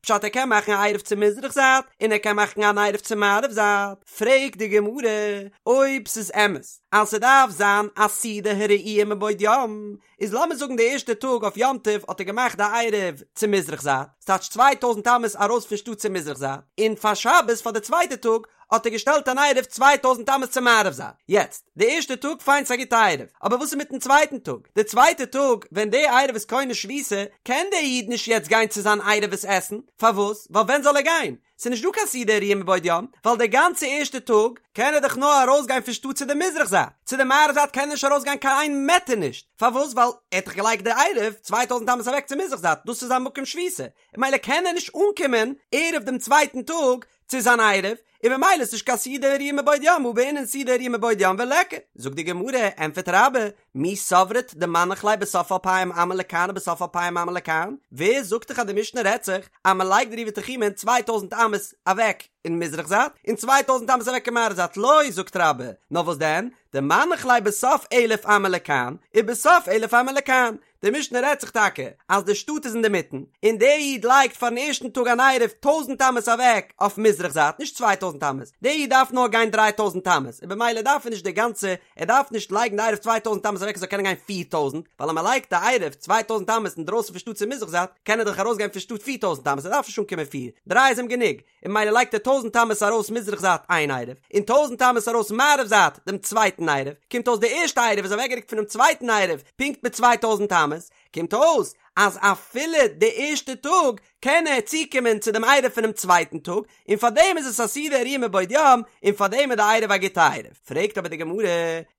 פשט ער קען מאכן א עירוב צו מזרח זייט און ער קען מאכן אן עירוב צו מערב זייט, פרעגט די גמרא אויב ס'איז אמת אז ס'דארף זיין א סעודה הראויה מבעוד יום, איז לאמיר זאגן די ערשטע טאג אויף יום טוב האט ער געמאכט די עירוב צו מזרח זייט, ס'טייטש 2000 אמות ארויס פון שטאט צו מזרח זייט, און פאר שבת פאר די צווייטע טאג. האט ער געשטעלט אן עירוב 2000 אמות צו מערב זייט, יעצט, די ערשטע טאג פיין ס'איז א גוטע עירוב, אבער וואס איז מיטן צווייטן טאג? די צווייטע טאג ווען די עירוב איז קונה שביתה, קען דער איד נישט יעצט גיין צו זיין עירוב עס עסן, פארוואס? ווייל ווען זאל ער גיין? ס'איז נישט דא קיין סעודה הראויה מבעוד יום, ווייל די גאנצע ערשטע טאג קען ער דאך נאר ארויסגיין פון שטאט צו די מזרח זייט, צו די מערב זייט קען ער נישט ארויסגיין קיין איין מעטער נישט, פארוואס? ווייל ער האט דאך געלייגט די עירוב 2000 אמות אוועק צו מזרח זייט, דאס איז זיין מקום שביתה, ממילא קען ער נישט אנקומען ערב דעם צווייטן טאג צו זיין עירוב, און ממילא איז נישט קיין סעודה הראויה מבעוד יום הא בעינן סעודה הראויה מבעוד יום וליכא. זאגט די גמרא, ענטפערט רבה, מי סברת דמנח ליה בסוף אלפים אמה לכאן ובסוף אלפים אמה לכאן? ווער זאגט דיך אז די משנה רעדט זיך אז מען לייגט די עירובי תחומין צוויי טויזנט אמות אוועק אין מזרח זייט און צוויי טויזנט אמות אוועק אין מערב זייט? לא, זאגט רבה, נאר וואס דען? דמנח ליה בסוף אלף אמה לכאן ובסוף אלף אמה לכאן, די משנה רעדט זיך טאקע אז די שטאט איז אינדערמיטן, און דער איד לייגט פארן ערשטן טאג אן עירוב טויזנט אמות אוועק אויף מזרח זייט, נישט 2000 אמות, דער איד דארף נאר גיין 3000 אמות, און במילא דארף ער נישט די גאנצע, ער דארף נישט לייגן די עירוב 2000 אמות אוועק ער זאל קענען גיין 4000, ווייל אז מען לייגט די עירוב 2000 אמות אינדרויסן פון שטאט צו מזרח זייט, קען ער דאך ארויסגיין פון שטאט 4000 אמות, ער דארף נישט אנקומען פיר, דריי איז אים גענוג. און ממילא לייגט ער טויזנט אמות ארויס מזרח זייט איין עירוב, און טויזנט אמות ארויס מערב זייט דעם צווייטן עירוב, קומט אויס די ערשטע עירוב איז אוועקגערוקט פונעם צווייטן עירוב פונקט מיט 2000 אמות, קומט אויס אז אפילו די ערשטע טאג קען ער צוקומען צו דעם עירוב פונעם צווייטן טאג, און פארדעם איז עס א סעודה הראויה מבעוד יום, און פארדעם איז די עירוב א גוטע עירוב. פרעגט אבער די גמרא,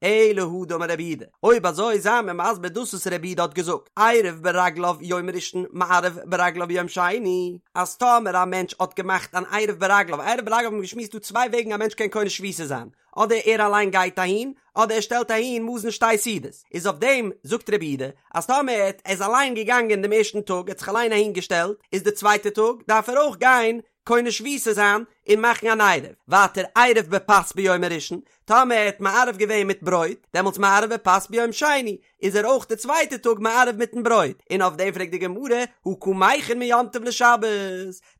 אלא הא דאמר רב יהודה, אויב אזוי זיי מיר מסביר דאס וואס רב יהודה האט געזאגט, עירב ברגליו יום ראשון מערב ברגליו ביום שני, אז טאמער א מענטש האט געמאכט אן עירוב ברגליו, עירוב ברגליו האט מען געשמועסט דא צוויי וועגן א מענטש קען קונה שביתה זיין, אדער ער אליין גייט אהין, אדער ער שטעלט אהין מזון שתי סעודות, איז אויף דעם זאגט רב יהודה, אז טאמער ער איז אליין געגאנגען דעם ערשטן טאג, ער האט זיך אליין אהין געשטעלט, איז די צווייטע טאג דארף ער אויך גיין קונה שביתה זיין און מאכן אן עירוב, ווייטער עירב בפת ביום הראשון, טאמער ער האט מערב געווען מיט ברויט, דעמאלטס מערב בפת ביום שני, איז ער אויך די צווייטע טאג מערב מיטן ברויט, און אויף דעם פרעגט די גמרא, הא קא מכין מיום טוב לשבת,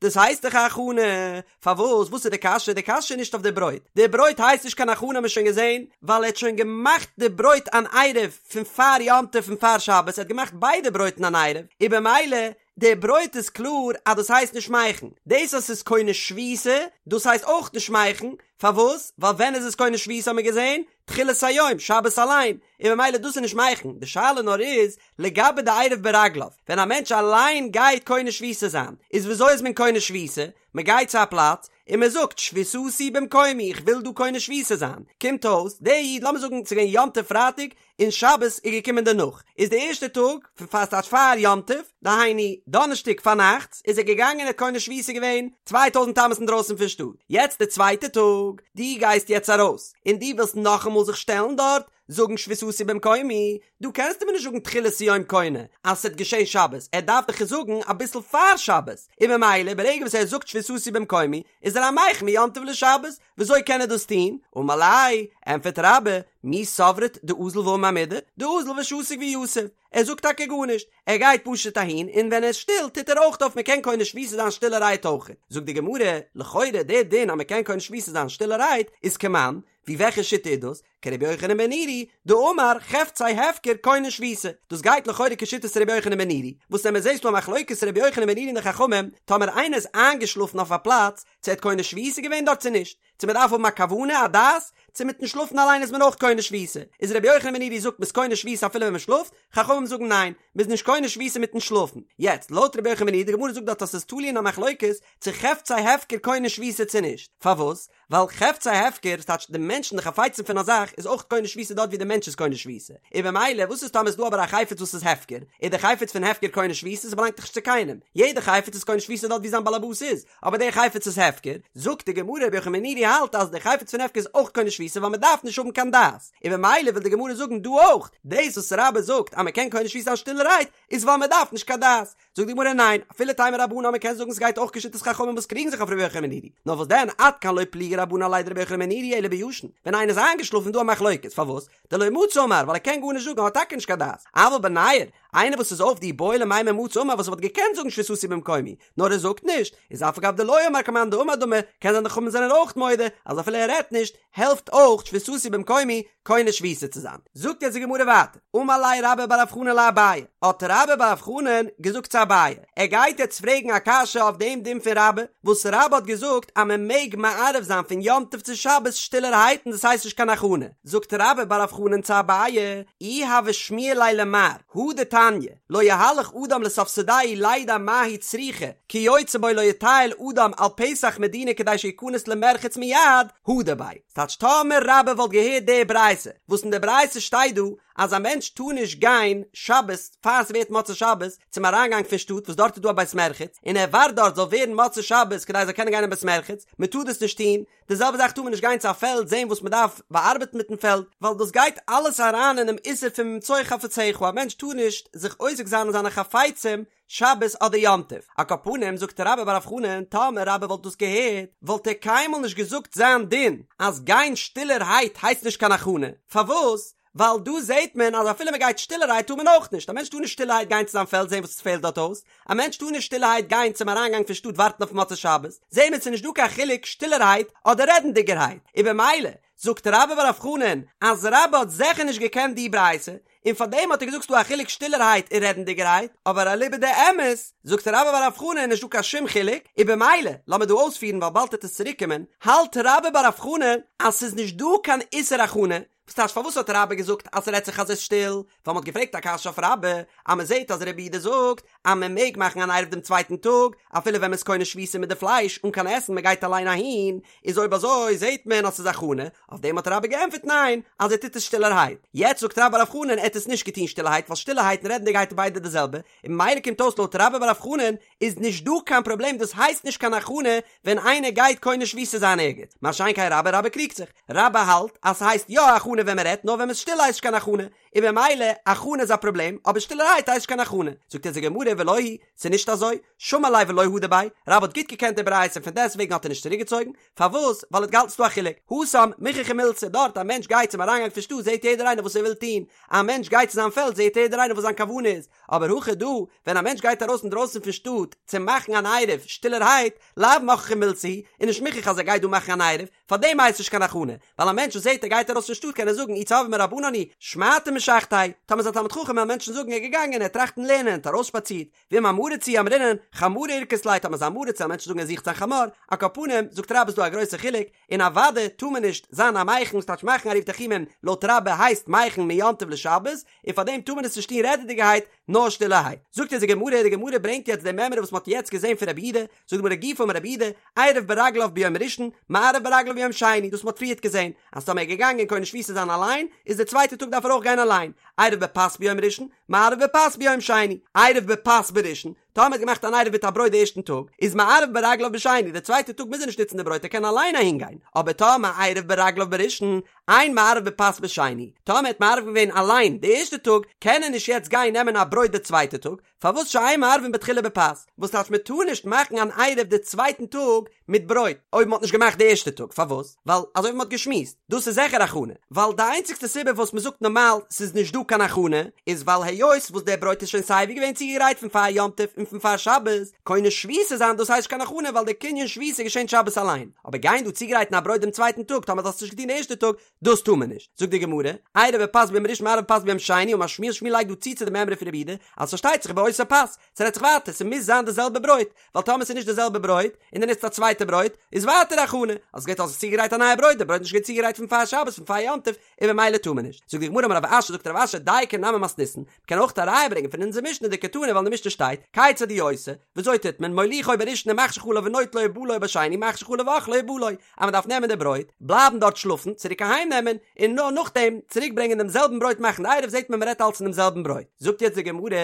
דאס הייסט דאך א הכנה, פארוואס, וואס איז די קשיא, די קשיא איז נישט אויף די ברויט, די ברויט הייסט נישט קיין הכנה האט מען שוין געזען, ווייל ער האט שוין געמאכט די ברויט אן עירוב פון פאר יום טוב פון פאר שבת, ער האט געמאכט ביידע ברויטן אן עירוב, און במילא די ברויט איז קלאר אז דאס הייסט נישט מכין, דאס אז ס'איז קונה שביתה דאס הייסט אויך נישט מכין, פארוואס? ווייל ווען איז עס קונה שביתה האט מען געזען? תחילת היום, שבת אליין, און ממילא דאס איז נישט מכין, די שאלה נאר איז לגבי די עירוב ברגליו, ווען א מענטש אליין גייט קונה שביתה זיין, איז וויאזוי איז מען קונה שביתה? מען גייט צו א פלאץ און מען זאגט שביתתי במקומי איך וויל דא קונה שביתה זיין, קומט אויס דער איד לאמיר זאגן ס'איז געווען יום טוב פרייטאג און שבת איז געקומען דערנאך, איז די ערשטע טאג פון פאר ס'טייטש פאר יום טוב, דהיינו דאנערשטאג פארנאכטס, איז ער געגאנגען און האט קונה שביתה געווען 2000 אמות אינדרויסן פון שטאט, יעצט די צווייטע טאג, דו גייסט יעצט ארויס און דו ווילסט נאכאמאל זיך שטעלן דארט זאגן שביתתי במקומי, דא קענסטו מיר נישט זאגן תחילת היום קונה אז ס'וועט געשען שבת, ער דארף דאך עס זאגן אביסל פאר שבת, און ממילא ברגע וואס ער זאגט שביתתי במקומי איז ער א מכין מיום טוב לשבת, וויאזוי קען ער דאס טון? אמר ליה, ענטפערט רבה, מי סברת דאזיל ואמר מידי, דאזיל ושתיק ויתיב, ער זאגט טאקע גארנישט, ער גייט פשוט אהין און ווען ער איז שטיל טוט ער אויך אויף מ'קען קונה שביתה זיין שטילערהייט אויך, זאגט די גמרא, לכאורה דער דין אז מ'קען קונה שביתה זיין שטילערהייט איז כמאן, ווי וועלכע שיטה איז דאס? כרבי יוחנן בן נורי, דאמר חפצי הפקר קונין שביתה, דאס גייט לכאורה כשיטת רבי יוחנן בן נורי, וואס ווען מען זעהט ס'דא א מחלוקת רבי יוחנן בן נורי און די חכמים, טאמער איינער איז איינגעשלאפן אויף א פלאץ, צו ער האט קונה שביתה געווען דארט צו נישט, צו מען דארף האבן א כוונה, א דעת, צו מיטן שלאפן אליין איז מען אויך קונה שביתה, איז רבי יוחנן בן נורי זאגט מ'איז קונה שביתה אפילו ווען מען שלאפט, חכמים זאגן ניין, מ'איז נישט קונה שביתה מיטן שלאפן. יעצט, לויט רבי יוחנן בן נורי, די גמרא זאגט דארט אז ס'איז תלוי אין א מחלוקת, צו חפצי הפקר קונה שביתה צו נישט, פארוואס? ווייל חפצי הפקר, ס'טייטש די מענטשן די חפצים פון א זאך, איז אויך קונה שביתה דארט ווי די מענטש איז קונה שביתה. און במילא וואס איז טאמער איז דא אבער א חפץ וואס איז הפקר, איז די חפץ פון הפקר קונה שביתה, ס'באלאנגט דאך נישט צו קיינעם, יעדע חפץ איז קונה שביתה דארט ווי זיין באלעבאס איז, אבער די חפץ איז הפקר, זאגט די גמרא רבי יוחנן בן נורי האלט אז די חפץ פון הפקר איז אויך קונה שביתה ווייל מ'דארף נישט האבן קיין דעת, און במילא וויל די גמרא זאגן דא אויך, דאס וואס רבה זאגט אז מ'קען קונה שביתה זיין שטילערהייט, איז ווייל מ'דארף נישט קיין דעת. זאגט די גמרא ניין, אפילו תימא רבנן מ'קען זאגן ס'גייט אויך כשיטת חכמים וואס קריגן זיך אויף רבי יוחנן בן נורי, נאר וואס דען עד כאן לא פליגי רבנן עליה דרבי יוחנן בן נורי אלא בישן, ווען איינער איז איינגעשלאפן איז דא א מחלוקת, פארוואס? דלא מצי אמר, ווייל ער קען גארנישט זאגן ער האט טאקע נישט קיין דעת, אבל בניעור, איינער וואס איז אויף דאי בעי למימר מצי אמר וואס וואלט געקענט זאגן שביתתי במקומי, נאר ער זאגט נישט, איז אף על גב דלא אמר כמאן דאמר דמי, קען זיין די חכמים זענען אויך מודה אז אפילו ער רעדט נישט, העלפט אויך שביתתי במקומי קונה שביתה צו זיין. זאגט יעצט די גמרא ווייטער, אמר ליה רבה בר רב חנן לאביי, האט רבה בר רב חנן געזאגט צו אביי, ער גייט יעצט פרעגן א קשיא אויף דעם דין פון רבה, וואס רבה האט געזאגט אז מען מעג מערב זיין פון יום טוב צו שבת שטילערהייט און דאס הייסט נישט קיין הכנה, זאגט רבה בר רב חנן צו אביי, אי הוה שמיע ליה למר, הא דתניא, לא יהלך אדם לסוף שדהו לידע מה היא צריכה, כיוצא בו לא יטייל אדם על פתח מדינה כדי שיכנס למרחץ מיד, הדר ביה. ס'טייטש טאמער רבה וואלט געהערט די ברייתא, וואס אין די ברייתא שטייט דא אז א מענטש טאר נישט גיין שבת פאר ס'ווערט מוצאי שבת צום אריינגאנג פון שטאט וואס דארט איז דא א בית מרחץ, און ער ווארט דארט זאל ווערן מוצאי שבת כדי ער זאל קענען גיין אין בית מרחץ, מ'טאר דאס נישט טון, די זעלבע זאך טאר מען נישט גיין צו א פעלד זען וואס מען דארף באארבעטן מיטן פעלד, ווייל דאס גייט אלעס אריין אינעם איסור פון ממצוא חפציך, א מענטש טאר נישט זיך עוסק זיין אין זיינע חפצים שבת אדער יום טוב. על כל פנים זאגט רבה בר רב חנן, טאמער רבה וואלט דאס געהערט, וואלט ער קיינמאל נישט געזאגט זיין דין אז גיין שטילערהייט הייסט נישט קיין הכנה, פארוואס? ווייל דא זעט מען אז אפילו מען גייט שטילערהייט טאר מען אויך נישט, א מענטש טאר נישט שטילערהייט גיין צו זיין פעלד זען וואס עס פעלט דארט אויס, א מענטש טאר נישט שטילערהייט גיין צום אריינגאנג פון שטאט ווארטן אויף מוצאי שבת, זעהן מיר ס'איז נישט דא קיין חילוק שטילערהייט אדער רעדנדיגערהייט, און במילא זאגט רבה בר רב חנן אז רבה האט זעכער נישט געקענט די ברייתא, און פארדעם האט ער געזאגט ס'דא א חילוק שטילערהייט און רעדנדיגערהייט, אבער אליבא דאמת זאגט רבה בר רב חנן נישט דא קיין שום חילוק, און במילא לאמיר דא אויספירן ווייל באלד וועט עס צוריקקומען, האלט רבה בר רב חנן אז ס'איז נישט דא קיין איסור הכנה, וואס טייטש פארוואס האט רבה געזאגט אז ס'רעדט זיך אז ס'איז שטיל? ווייל מ'האט געפרעגט א קשיא אויף רבה אז מ'זעט אז רבי יהודה זאגט אז מ'מעג מאכן אן עירוב דעם צווייטן טאג אפילו ווען מ'איז קונה שביתה מיט די פלייש אן קיין עסן מ'גייט אליין אהין, איז אויב אזוי זעט מען אז ס'איז הכנה, אויף דעם האט רבה געענטפערט ניין אז ער טוט עס שטילערהייט, יעצט זאגט רבה בר רב חנן ער האט עס נישט געטון שטילערהייט ווייל שטילערהייט און רעדנדיגערהייט איז ביידע די זעלבע, און ממילא קומט אויס לויט רבה בר רב חנן איז נישט דא קיין פראבלעם דאס הייסט נישט קיין הכנה ווען איינער גייט קונה שביתה זיין ערגעץ, מה שאין כן רבה, רבה קריגט זיך, רבה האלט אז ס'הייסט יא הכנה ווען מ'רעדט נאר ווען מ'איז שטיל הייסט נישט קיין הכנה, און במילא הכנה איז א פראבלעם אבער שטילערהייט הייסט נישט קיין הכנה, זאגט אונז די גמרא ולא היא, ס'איז נישט אזוי, שמע ליה ולא הדר ביה, רבה האט גוט געקענט די ברייתא און פון דעסטוועגן האט ער נישט צוריקגעצויגן, פארוואס? ווייל ער האט געהאלטן ס'דא א חילוק, התם מוכחא מילתא, דארט א מענטש גייט צום אריינגאנג פון שטאט זעט יעדער איינער וואס ער וויל טון, א מענטש גייט צו זיין פעלד זעט יעדער איינער וואס זיין כוונה איז, אבער הכא דא, ווען א מענטש גייט ארויס אינדרויסן פון שטאט צו מאכן אן עירוב שטילערהייט, לאו מוכחא מילתא היא, איז נישט מוכח אז ער גייט דא מאכן אן עירוב, פארדעם הייסט נישט קיין הכנה, ווייל א מענטש וואס זעט ער גייט ארויס פון שטאט קען ער זאגן אי צורבא מרבנן הוא, שמעתא משכתיה, טאמער איז א תלמיד חכם וועלן מענטשן זאגן ער איז געגאנגען ער האט טראכטן לערנען ער האט ארויסשפאצירט, ואם עם הארץ הוא אמרינן, חמרא אירכס ליה, טאמער איז עם הארץ וועלן מענטשן זאגן ער זוכט זיין חמור, על כל פנים, זאגט רבה איז דא א גרויסע חילוק, און אוודאי טאר מען נישט זיין א מכין, ס'טייטש מאכן עירובי תחומין, לויט רבה הייסט מכין מיום טוב לשבת, און פאר דעם טאר מען עס נישט טון רעדעדיגערהייט, נאר שטילערהייט. זאגט אונז די גמרא, די גמרא ברענגט יעצט די מימרא וואס מען האט יעצט געזען פון רבי יהודה, זאגט די גמרא גופא אמר רבי יהודה, עירב ברגליו ביום ראשון, מערב ברגליו ביום שני, דאס מען האט פריערט געזען, אז טאמער ער איז געגאנגען קונה שביתה זיין אליין, איז די צווייטע טאג דארף ער אויך גיין אליין, עירב בפת ביום ראשון, מערב בפת ביום שני, עירב בפת בראשון, טאמער האט געמאכט אן עירוב מיט א ברויט די ערשטן טאג, איז מערב ברגליו בשני, די צווייטע טאג מוז ער נישט נוצן די ברויט ער קען אליין אהין גיין, אבער טאמער עירב ברגליו בראשון, אין מערב בפת בשני, טאמער האט מערב געווען אליין די ערשטע טאג, קען ער נישט יעצט גיין נעמען א ברויט די צווייטע טאג, פארוואס שאין מערבין בתחילה בפת, וואס טייטש מען טאר נישט מאכן אן עירוב די צווייטן טאג מיט ברויט, אויב מען האט נישט געמאכט די ערשטע טאג, פארוואס? ווייל אזוי ווי מען האט געשמועסט, דאס איז זיכער הכנה, ווייל די איינציגסטע סיבה וואס מען זאגט נארמאל ס'איז נישט דא קיין הכנה, איז ווייל היות וואס דער ברויט איז שוין סייווי געווען צוגעגרייט פון פאר יום טוב און פון פאר שבת, קונה שביתה זיין דאס הייסט נישט קיין הכנה ווייל די קנין שביתה געשענט שבת אליין, אבער גיין דא צוגרייטן א ברויט דעם צווייטן טאג טאמער דו האסט נישט געטון די ערשטע טאג, דאס טאר מען נישט, זאגט די גמרא, עירב בפת ביום ראשון מערב בפת ביום שני, אמר שמואל שמואל לייגט דא צו צו די מימרא פון רבי יהודה, אז פארשטייט זיך באותה פת, ס'רעדט זיך ווייטער, ס'מוז זיין די זעלבע ברויט, ווייל טאמער ס'איז נישט די זעלבע ברויט, און דו נוצט א צווייטע ברויט, איז ווייטער הכנה, אז ס'גייט אויס צוגעגרייט א נייע ברויט, די ברויט איז נישט געווען צוגעגרייט פון פאר שבת, פון פאר יום טוב, און במילא טאר מען נישט. זאגט די גמרא אמר רב אשי, זאגט רב אשי, דייקא נמי מתניתין, מ'קען אויך א ראיה ברענגען פון אונזער משנה דקתני ווייל אין די משנה שטייט, כיצד הוא עושה, וויאזוי טוט מען, מוליכו בראשון ומחשיך עליו ונוטלו ובא לו בשני מחשיך עליו ואוכלו ובא לו, אז מ'דארף נעמען די ברויט, בלייבן דארט שלאפן, צוריק אהיים נעמען, און נאר נאכדעם צוריק ברענגען דעם זעלבן ברויט מאכן די עירוב זעט מען מ'רעדט אלץ פון דעם זעלבן ברויט. זאגט יעצט די גמרא,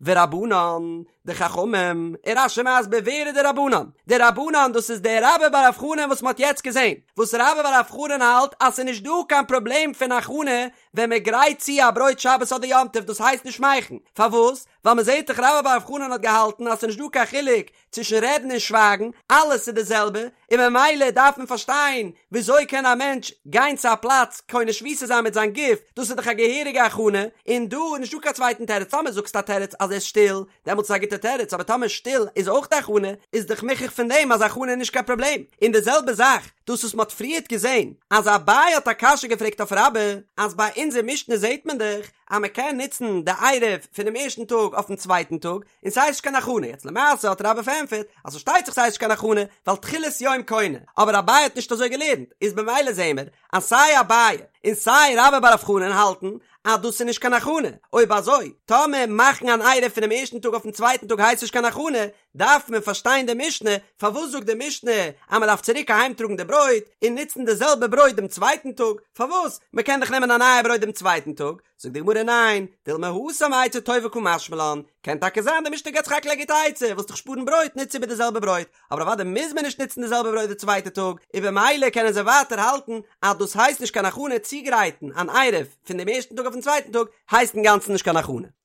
ורבנן, די חכמים, און רש"י מסביר ווער איז די רבנן? די רבנן דאס איז דער רבה בר רב חנן וואס מ'האט יעצט געזען, וואס רבה בר רב חנן האלט אז ס'איז נישט דא קיין פראבלעם פון הכנה ווען מ'גרייט צו א ברויט שבת אדער יום טוב דאס הייסט נישט מכין, פארוואס? ווייל מ'זעט דאך רבה בר רב חנן האט געהאלטן אז ס'איז נישט דא קיין חילוק צווישן רעדן און שווייגן, אלעס איז די זעלבע, און ממילא דארף מען פארשטיין וויאזוי קען א מענטש גיין צו א פלאץ קונה שביתה זיין מיט זיין גוף, דאס איז דאך א געהעריגע הכנה, און דא איז נישטא קיין צווייטן תירוץ, טאמער זאגסטו א תירוץ אז ער איז שטיל, דעמאלטס איז א גוטע תירוץ, אבער טאמער שטיל איז אויך די הכנה, איז דאך מוכח פון דעם אז הכנה איז נישט קיין פראבלעם, און די זעלבע זאך דאס וואס מען האט פריערט געזען אז אביי האט א קשיא געפרעגט אויף רבה, אז ביי אונזער משנה זעט מען דאך אז מען קען נוצן די עירוב פונעם ערשטן טאג אויפן צווייטן טאג, און ס'הייסט נישט קיין הכנה, יעצט למעשה האט רבה פארענטפערט אז פארשטייט זיך ס'הייסט נישט קיין הכנה ווייל תחילת יום קונה, אבער אביי האט נישט אזוי געלערנט, איז במילא זעהן מיר אז סיי אביי און סיי רבה בר רב חנן האלטן אז דאס איז נישט קיין הכנה, אויב אזוי טאמער מאכן אן עירוב פונעם ערשטן טאג אויפן צווייטן טאג הייסט נישט קיין הכנה, דארף מען פארשטיין די משנה, פארוואס זאגט די משנה אז מען דארף צוריק אהיים טראגן די ברויט און נוצן די זעלבע ברויט דעם צווייטן טאג, פארוואס? מען קען דאך נעמען א נייע ברויט דעם צווייטן טאג, זאגט די גמרא ניין, דילמא התם עצה טובה קא משמע לן, קען טאקע זיין די משנה געבט סך הכל א גוטע עצה, ווילסט דיך שפארן ברויט נוץ איבער די זעלבע ברויט, אבער אוודאי מוז מען נישט נוצן די זעלבע ברויט די צווייטע טאג, און במילא קענען זיי ווייטער האלטן אז דאס הייסט נישט קיין הכנה צוגרייטן אן עירוב פון דעם ערשטן טאג אויפן צווייטן טאג הייסט אינגאנצן נישט קיין הכנה.